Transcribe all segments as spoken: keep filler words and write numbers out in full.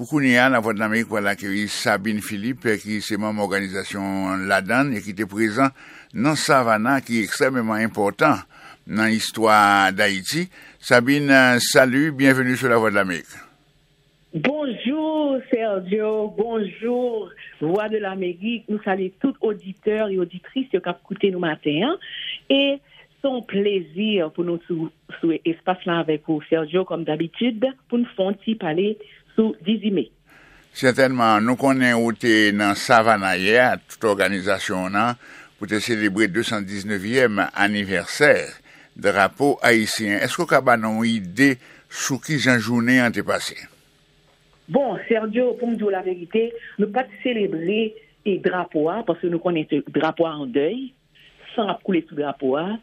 Pou kounye a, Lavwadlamerik pral akeyi Sabine Philippe, ki se manm òganizasyon Ladan e ki te prezan nan Savannah, ki ekstrèmeman enpòtan nan istwa Dayiti. Sabine, salut, bienvenue sur Lavwadlamerik. Bonjou Sergio, bonjou Vwa de Lamerik. Nou salye tout oditè e oditris yo k ap koute nou maten an. E se yon plezi pou nou sou, sou espas la avèk ou, Sergio, kòm dabitid, pou n fè yon ti pale sou dizuit me. Sètènman, nou konnen ou te nan Savannah yè, tout òganizasyon w nan, pou te selebre de san diznèvyèm anivèsè drapo ayisyen. Èske w ka ba nou yon ide sou kijan jounen an te pase? Bon, Sergio, pou m di w laverite, nou pa t selebre e drapo a, paske nou konnen se drapo a an dèy, san ap koule sou drapo a,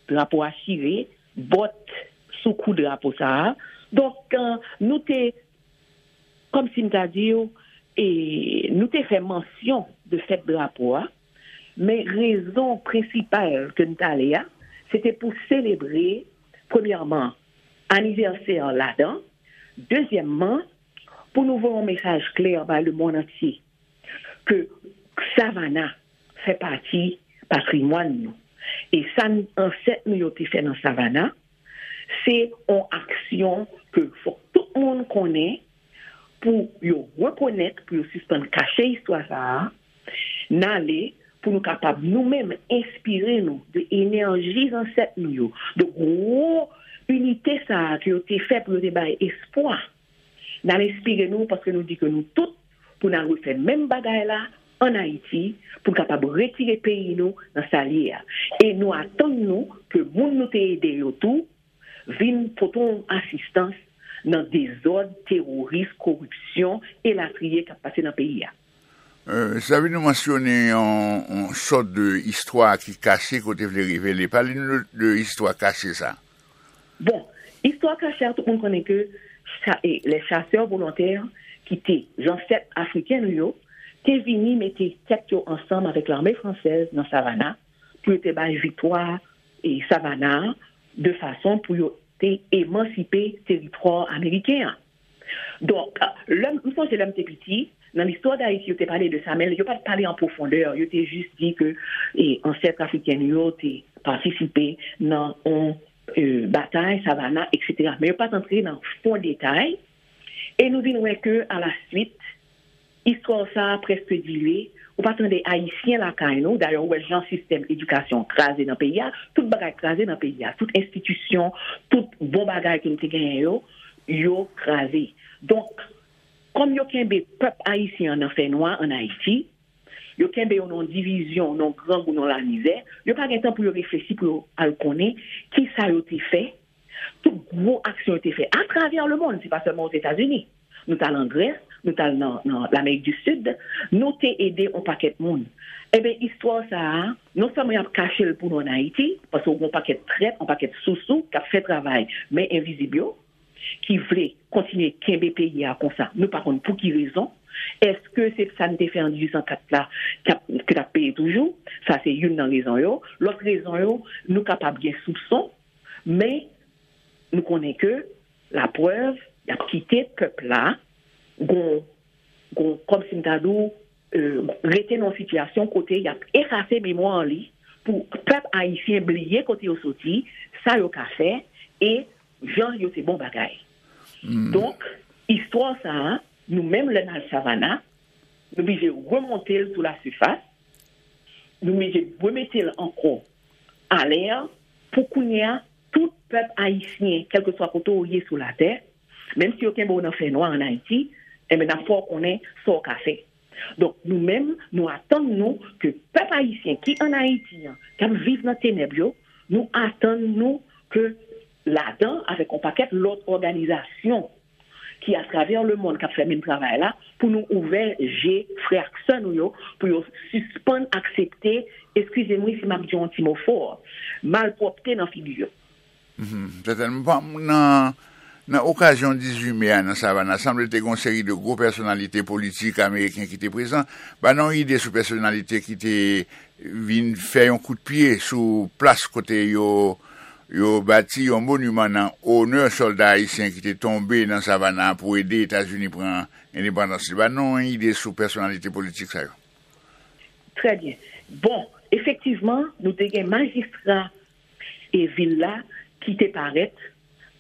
drapo a chire, bòt sou kou drapo sa a. Donk, nou te, kòmsi m ta di w, e, nou te fè mansyon de fèt drapo a, men rezon prensipal ke n t ale a, se te pou selebre, premyèman, anivèsè Ladan, dezyèmman, pou nou voye yon mesaj klè bay lemonn antye ke Savannah fè pati patrimwàn nou. E sa ansèt nou yo te fè nan Savannah, se yon aksyon ke fòk tout moun konnen pou yo rekonèt, pou yo sispann kache istwa sa a, n ale pou nou kapab nou menm enspire nou de enèji zansèt nou yo, de gwo inite sa a ke yo te fè pou yo te bay espwa. N al enspire nou paske nou di ke nou tout pou n al refè menm bagay la ann Ayiti pou n kapab retire peyi nou nan sa l ye a. E nou atann nou ke moun nou te ede yo tou vin pote yon asistans nan dezòd, teworis, koripsyon, elatriye k ap pase nan peyi a. Sa vin nou mansyone yon, yon sòt de istwa ki kache ke w te vle revele. Pale nou de istwa kache sa. Bon, istwa kache a, tout moun konnen ke les chasseurs volontaires ki te zansèt afriken nou yo, te vini mete tèt yo ansanm avèk lame fransèz nan Savannah pou yo te bay viktwa e Savannah de fason pou yo te emansipe teritwa ameriken an. Donk, lè m sonje lè m te piti, nan listwa Dayiti, yo te pale de sa, men yo pa t pale an pwofondè, yo te jis di ke e, ansèt afriken yo te patisipe nan yon e, batay, Savannah, etsetera. Men yo pa t antre nan fon detay, e nou vin wè ke, alaswit, istwa sa a prèske dilye, ou pa tande Ayisyen lakay nou, dayè ou wè jan sistèm edikasyon kraze nan peyi a, tout bagay kraze nan peyi a, tout enstitisyon, tout bon bagay ke nou te genyen yo, yo kraze. Donk, kòm yo kenbe pèp ayisyen an nan fènwa ann Ayiti, yo kenbe yo nan yon divizyon, nan yon grangou, nan yon lamizè, yo pa gen tan pou yo reflechi, pou yo al konnen kisa yo te fè, tout gwo aksyon yo te fè atravè lemonn, se pa sèlman Ozetazini. Nou t al an Grès, nou t al nan, nan Lamerik di Sid, nou te ede yon pakèt moun. Ebyen, istwa sa a, non sèlman y ap kache l pou nou ann Ayiti, paske w gen yon pakèt trèt, yon pakèt sousou k ap fè travay men envizib yo, ki vle kontinye kenbe peyi a konsa, nou pa konn pou ki rezon. Èske se sa n te fè an dizuit san kat la k ap, ki t ap peye toujou? Sa se youn nan rezon yo. Lòt rezon yo, nou kapab gen soupson, men nou konnen ke laprèv, y ap kite pèp la gon, gon, kòmsi m ta di w, e, rete nan yon sitiyasyon kote y ap efase memwa li pou pèp ayisyen bliye kote yo soti, sa yo ka fè, e jan yo se bon bagay. Donk, istwa sa a, nou menm lè n al Savannah, nou blije remonte l sou lasifas, nou blije remete l ankò alè, pou kounye a, tout pèp ayisyen, kèlkeswa kote w ye sou latè, menm si yo kenbe w nan fènwa ann Ayiti, enben, n ap fè w konnen sa w ka fè. Donk, nou menm, nou atann nou ke pèp ayisyen ki ann Ayiti an, k ap viv nan tenèb yo, nou atann nou ke Ladan, avèk yon pakèt lòt òganizasyon ki atravè lemonn k ap fè menm travay la, pou nou ouvè je frè ak sè nou yo, pou yo sispann aksepte, eskize m wi si m ap di yon ti mo fò, malpwòpte nan figi yo. Sètènman, nan, nan okazyon dizuit me a nan Savannah, sanble te gen yon seri de gwo pèsonalite politik ameriken ki te prezan. Ba nou yon ide sou pèsonalite ki te vin fè yon kout pye sou plas kote yo Yo bati yon moniman nan onè sòlda ayisyen ki te tonbe nan Savannah pou ede Etazini pran endepandans li. Ba nou yon ide sou pèsonalite politik sa yo. Trè byen. Bon, efektivman, nou te gen majistra e vil la ki te parèt.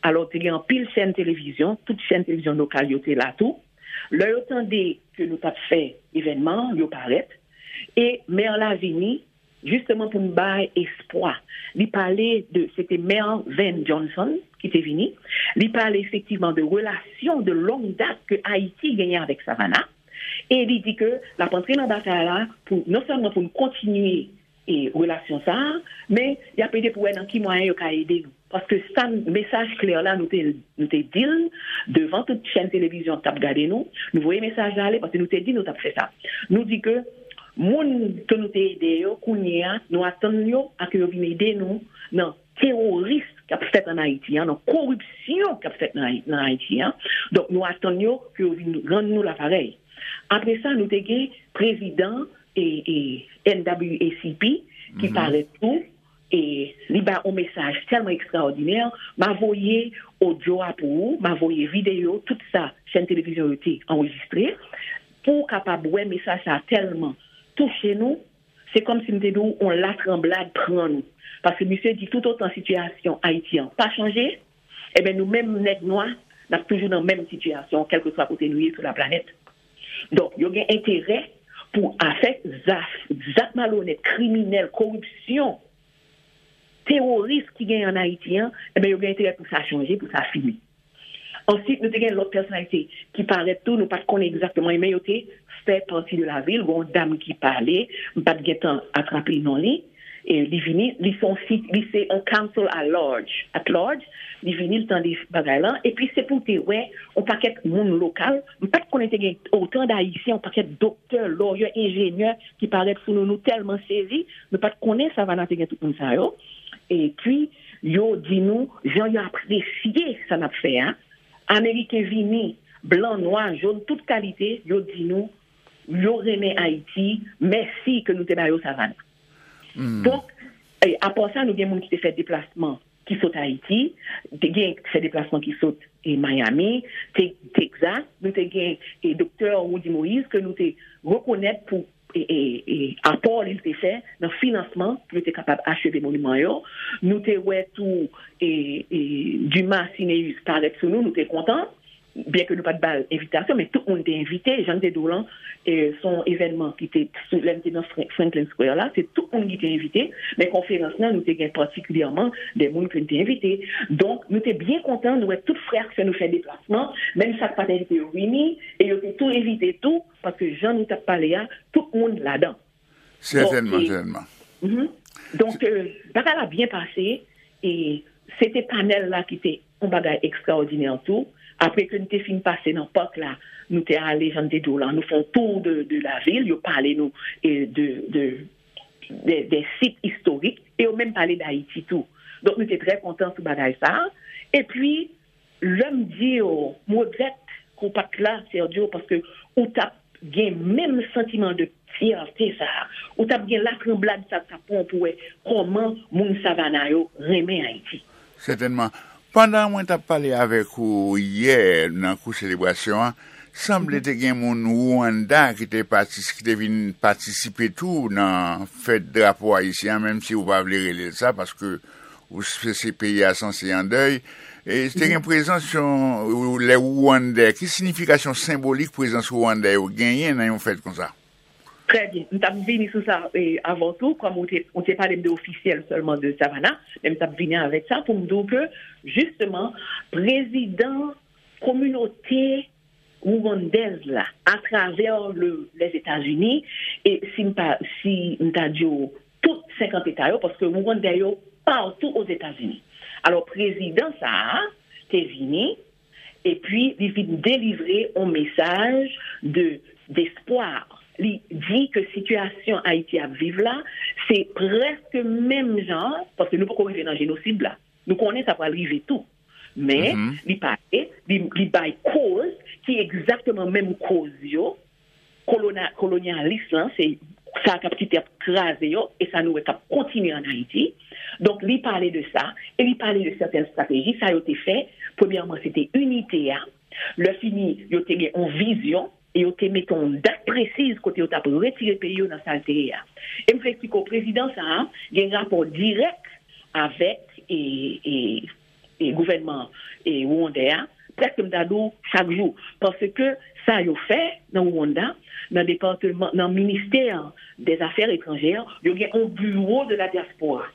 Alò, te gen anpil chèn televizyon, tout chèn televizyon lokal yo te la tou. Lè yo tande ke nou t ap fè evènman an, yo parèt. E mè la vini, jisteman pou n bay espwa. Li pale de, se te mè Van Johnson ki te vini. Li pale efektivman de relasyon de long dat ke Ayiti genyen avèk Savannah. E li di ke l ap antre nan batay la pou non sèlman pou n kontinye e relasyon sa a, men y ap ede pou wè nan ki mwayen yo ka ede nou. Paske sa, mesaj klè la, nou te, nou te di l devan tout chèn televizyon k t ap gade nou. Nou voye mesaj la ale paske nou te di nou t ap fè sa. Nou di ke moun ke nou te ede yo, kounye a, nou atann yo a ke yo vin ede nou nan teworis k ap fèt ann Ayiti an, nan koripsyon k ap fèt nan, nan Ayiti an. Donk, nou atann yo ke yo vin rann nou laparèy. Apre sa, nou te gen prezidan e, e, N W A C P ki parèt tou. E li bay yon mesaj tèlman ekstraòdinè. M a voye odyo a pou ou, m a voye videyo, tout sa chèn televizyon yo te anrejistre, pou w kapab wè mesaj sa a tèlman touche nou, se kòmsi m te di w yon latranblad pran nou. Paske misye di toutotan sitiyasyon Ayiti an pa chanje, ebyen nou menm nèg nwa, n ap toujou nan menm sitiyasyon, kèlkeswa kote nou ye sou laplanèt. Donk, yo gen enterè pou afè zak, zak malonèt, kriminèl, koripsyon, teworis ki genyen ann Ayiti an, ebyen yo gen enterè pou sa chanje, pou sa fini. Answit, nou te gen lòt pèsonalite ki parèt tou, nou pa t konnen egzakteman, men yo te fè pati de lavil. Gen yon dam ki pale, m pa t gentan atrape non li. E li vini, li se yon sit, li se yon counsel at large, at large. Li vini, li tande bagay lan. Epi se pou te wè yon pakèt moun lokal. M pa t konnen te gen otan d Ayisyen, yon pakèt doktè, lawyer, enjenyè ki parèt sou nou. Nou tèlman sezi, nou pa t konnen Savannah te gen tout moun sa yo. Epi, yo di nou, jan yo apresye sa n ap fè a. Ameriken vini, blan, nwa, jòn, tout kalite, yo di nou, yo renmen Ayiti, mèsi ke nou te ba yo Savannah. Donk, e, apa sa, nou gen moun ki te fè deplasman ki sot Ayiti, te gen fè deplasman ki sot e, Miami, Te- Texas, nou te gen e, doktè Roudy Moïse ke nou te rekonèt pou e, e, e, apò li te fè nan finansman pou yo te kapab acheve moniman yo. Nou te wè tou e, e, Dumas Sinéus parèt sou nou, nou te kontan. Byen ke nou pa t ba l envitasyon, men tout moun te envite. Jan m te di w lan, e, se yon evènman ki te sou, lè m te nan Fran- Franklin Square la, se tout moun ki te envite. Men konferans lan, nou te gen patikilyèman de moun ke n te envite. Donk, nou te byen kontan, nou wè tout frè ak sè nou fè deplasman, menm sa k pa t envite yo vini, e yo te tou envite tou, paske jan nou t ap pale a, tout moun ladan. Sètènman, sètènman. Donk, e, bagay la byen pase, e se te panèl la ki te yon bagay ekstraòdinè tou. Apre ke n te fin pase nan pak la, nou te ale, jan m te di w lan, nou fè yon tou de, de lavil, yo pale nou e, de, de, de, de sit istorik, e yo menm pale d Ayiti tou. Donk, nou te trè kontan sou bagay sa a. Epi, lè m di w, m regrèt ke w pa t la, Sergio, paske ou t ap gen menm santiman de fyète sa a. Ou t ap gen latranblad sa k t ap pran w pou wè kòman moun Savannah yo renmen Ayiti. Sètènman. Pandan mwen t ap pale avèk ou yè nan kou selebrasyon an, sanble te gen moun Rwanda ki te patis- ki te vin patisipe tou nan fèt drapo ayisyen an, menm si ou pa vle rele l sa, paske ou se, se peyi a sanse an dèy. E te gen prezans yon lè Rwandè. Ki siyifikasyon senbolik prezans Rwandè yo genyen nan yon fèt konsa? Trè byen. M t ap vini sou sa e, avan tou, kòm ou te, ou te pale m de ofisyèl sèlman de Savannah, men m t ap vini avèk sa pou m di w ke, jisteman, prezidan kominote rwandèz la atravè le, Lèzetazini, e si m pa, si m ta di w tout senkant eta yo, paske Rwandè yo patou Ozetazini. Alò, prezidan sa a te vini, epi li vin delivre yon mesaj de, despwa. Li di ke sitiyasyon Ayiti ap viv la, se prèske menm jan, paske nou poko rive nan jenosid la. Nou konnen sa pral rive tou. Men, li pale, li, li bay koz, ki egzakteman menm koz yo, kolona- kolonyalis lan, se sa k ap kite ap kraze yo, e sa nou wè k ap kontinye ann Ayiti. Donk, li pale de sa, e li pale de sèten estrateji sa yo te fè. Premyèman, se te inite a. Lè fini, yo te gen yon vizyon, e yo te mete yon dat presiz kote yo t ap retire peyi yo nan sa l te ye a. E m vle eksplike w, prezidan sa a gen rapò dirèk avèk e, e, e gouvènman e Rwandè a, prèske m ta di w chak jou. Paske sa yo fè nan Rwanda, nan depatman, nan ministè dèzafè etranjè, yo gen yon bureau de la diaspora.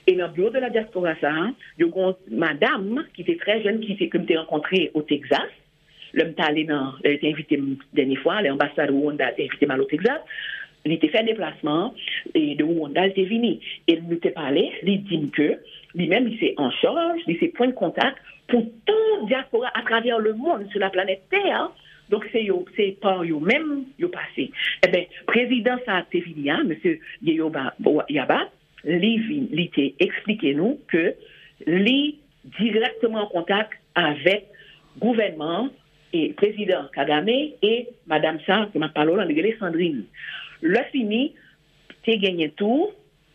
E nan bureau de la diaspora sa a, yo gen yon madanm ki te trè jèn, ki te, ke m te rankontre o Texas. Lè m t ale nan, lè yo te envite m dènye fwa, lè anbasad Rwanda te envite m al o Texas, li te fè deplasman an, e de Rwanda, li te vini. E nou te pale, li di m ke li menm, li se an chaj, li se pwen de kontak pou tout dyaspora atravè lemonn, sou laplanèt Tè. Donk, se yo, se pa yo menm yo pase. Eben, prezidan sa a te vini a, mesye Yeyoba Yaba, li vin, li te eksplike nou ke li dirèkteman an kontak avèk gouvènman an, e prezidan Kagame, e madanm sa ke m ap pale w la, li rele Sandrine. Lè fini, te genyen tou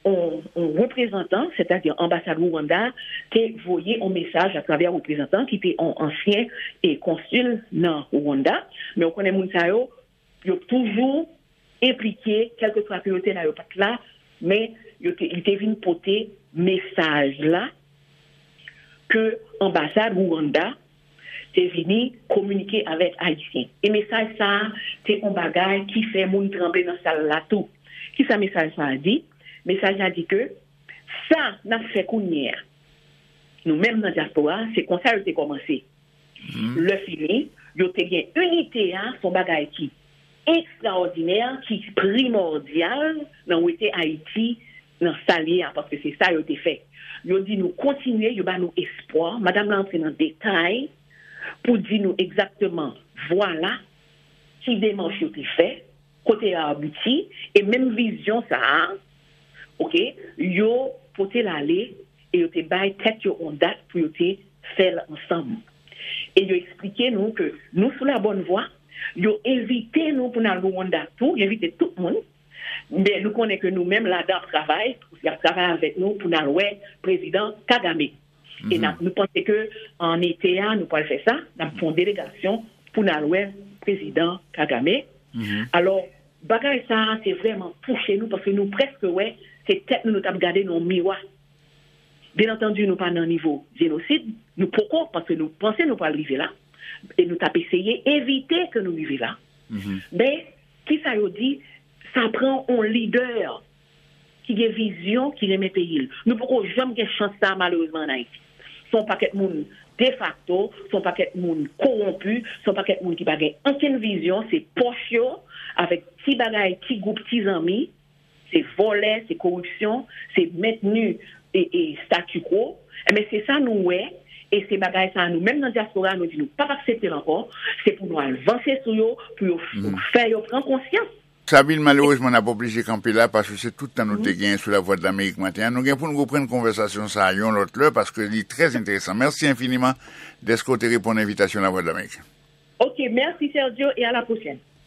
yon, yon reprezantan, sètadi anbasad Rwanda, te voye yon mesaj atravè reprezantan ki te yon ansyen e konsil nan Rwanda. Men w konnen moun sa yo, yo toujou enplike, kèlkeswa ke yo te la, yo pa t la, men yo te, li te vin pote mesaj la ke anbasad Rwanda te vini kominike avèk Ayisyen. E mesaj sa a te yon bagay ki fè moun tranble nan sal la tou. Kisa mesaj sa a di? Mesaj la di ke sa n ap fè kounye a, nou menm nan dyaspora, se konsa yo te kòmanse. Lè fini, yo te gen inite a, se yon bagay ki ekstraòdinè, ki primòdyal nan wete Ayiti nan sa l ye a, paske se sa yo te fè. Yo di nou kontinye, yo ba nou espwa. Madanm la antre nan detay pou di nou egzakteman, vwala, ki demach yo te fè, kote yo abouti, e menm vizyon sa a, oke, yo pote l ale, e yo te bay tèt yo yon dat pou yo te fè l ansanm. E yo eksplike nou ke nou sou la bòn vwa, yo envite nou pou n al Rwanda tou, yo envite tout moun, men nou konnen ke nou menm ladan ap travay, y ap travay avèk nou pou n al wè prezidan Kagame. E n ap, nou panse ke an ete a, nou pral fè sa, n ap fè yon delegasyon pou n al wè prezidan Kagame. Alò, bagay sa a, se vrèman touche nou, paske nou prèske wè se tèt nou nou t ap gade nan yon miwa. Byen antandi, nou pa nan nivo jenosid, nou poko, paske nou panse nou pral rive la, e nou t ap eseye evite ke nou rive la. Men, kisa yo di? Sa pran yon lidè ki gen vizyon, ki renmen peyi l. Nou poko janm gen chans sa a, malerezman, ann Ayiti. Se yon pakèt moun defakto, se yon pakèt moun kowonpi, se yon pakèt moun ki pa gen okenn vizyon, se pòch yo, avèk ti bagay, ti gwoup, ti zanmi, se vòlè, se koripsyon, se mentni e, e statu quo. Enben, se sa nou wè, e se bagay sa a, nou menm nan dyaspora, nou di nou p ap aksepte l ankò, se pou nou al vanse sou yo, pou yo f-, fè yo pran konsyans. Sabine, malerezman, n ap oblije kanpe la, paske se tout tan nou te genyen sou Lavwadlamerik maten an. Nou gen pou nou reprann konvèsasyon sa a yon lòt lè, paske li trè enteresan. Mèsi enfiniman dèske w te reponn envitasyon Lavwadlamerik. Ok, mèsi Sergio, e a la pwochèn.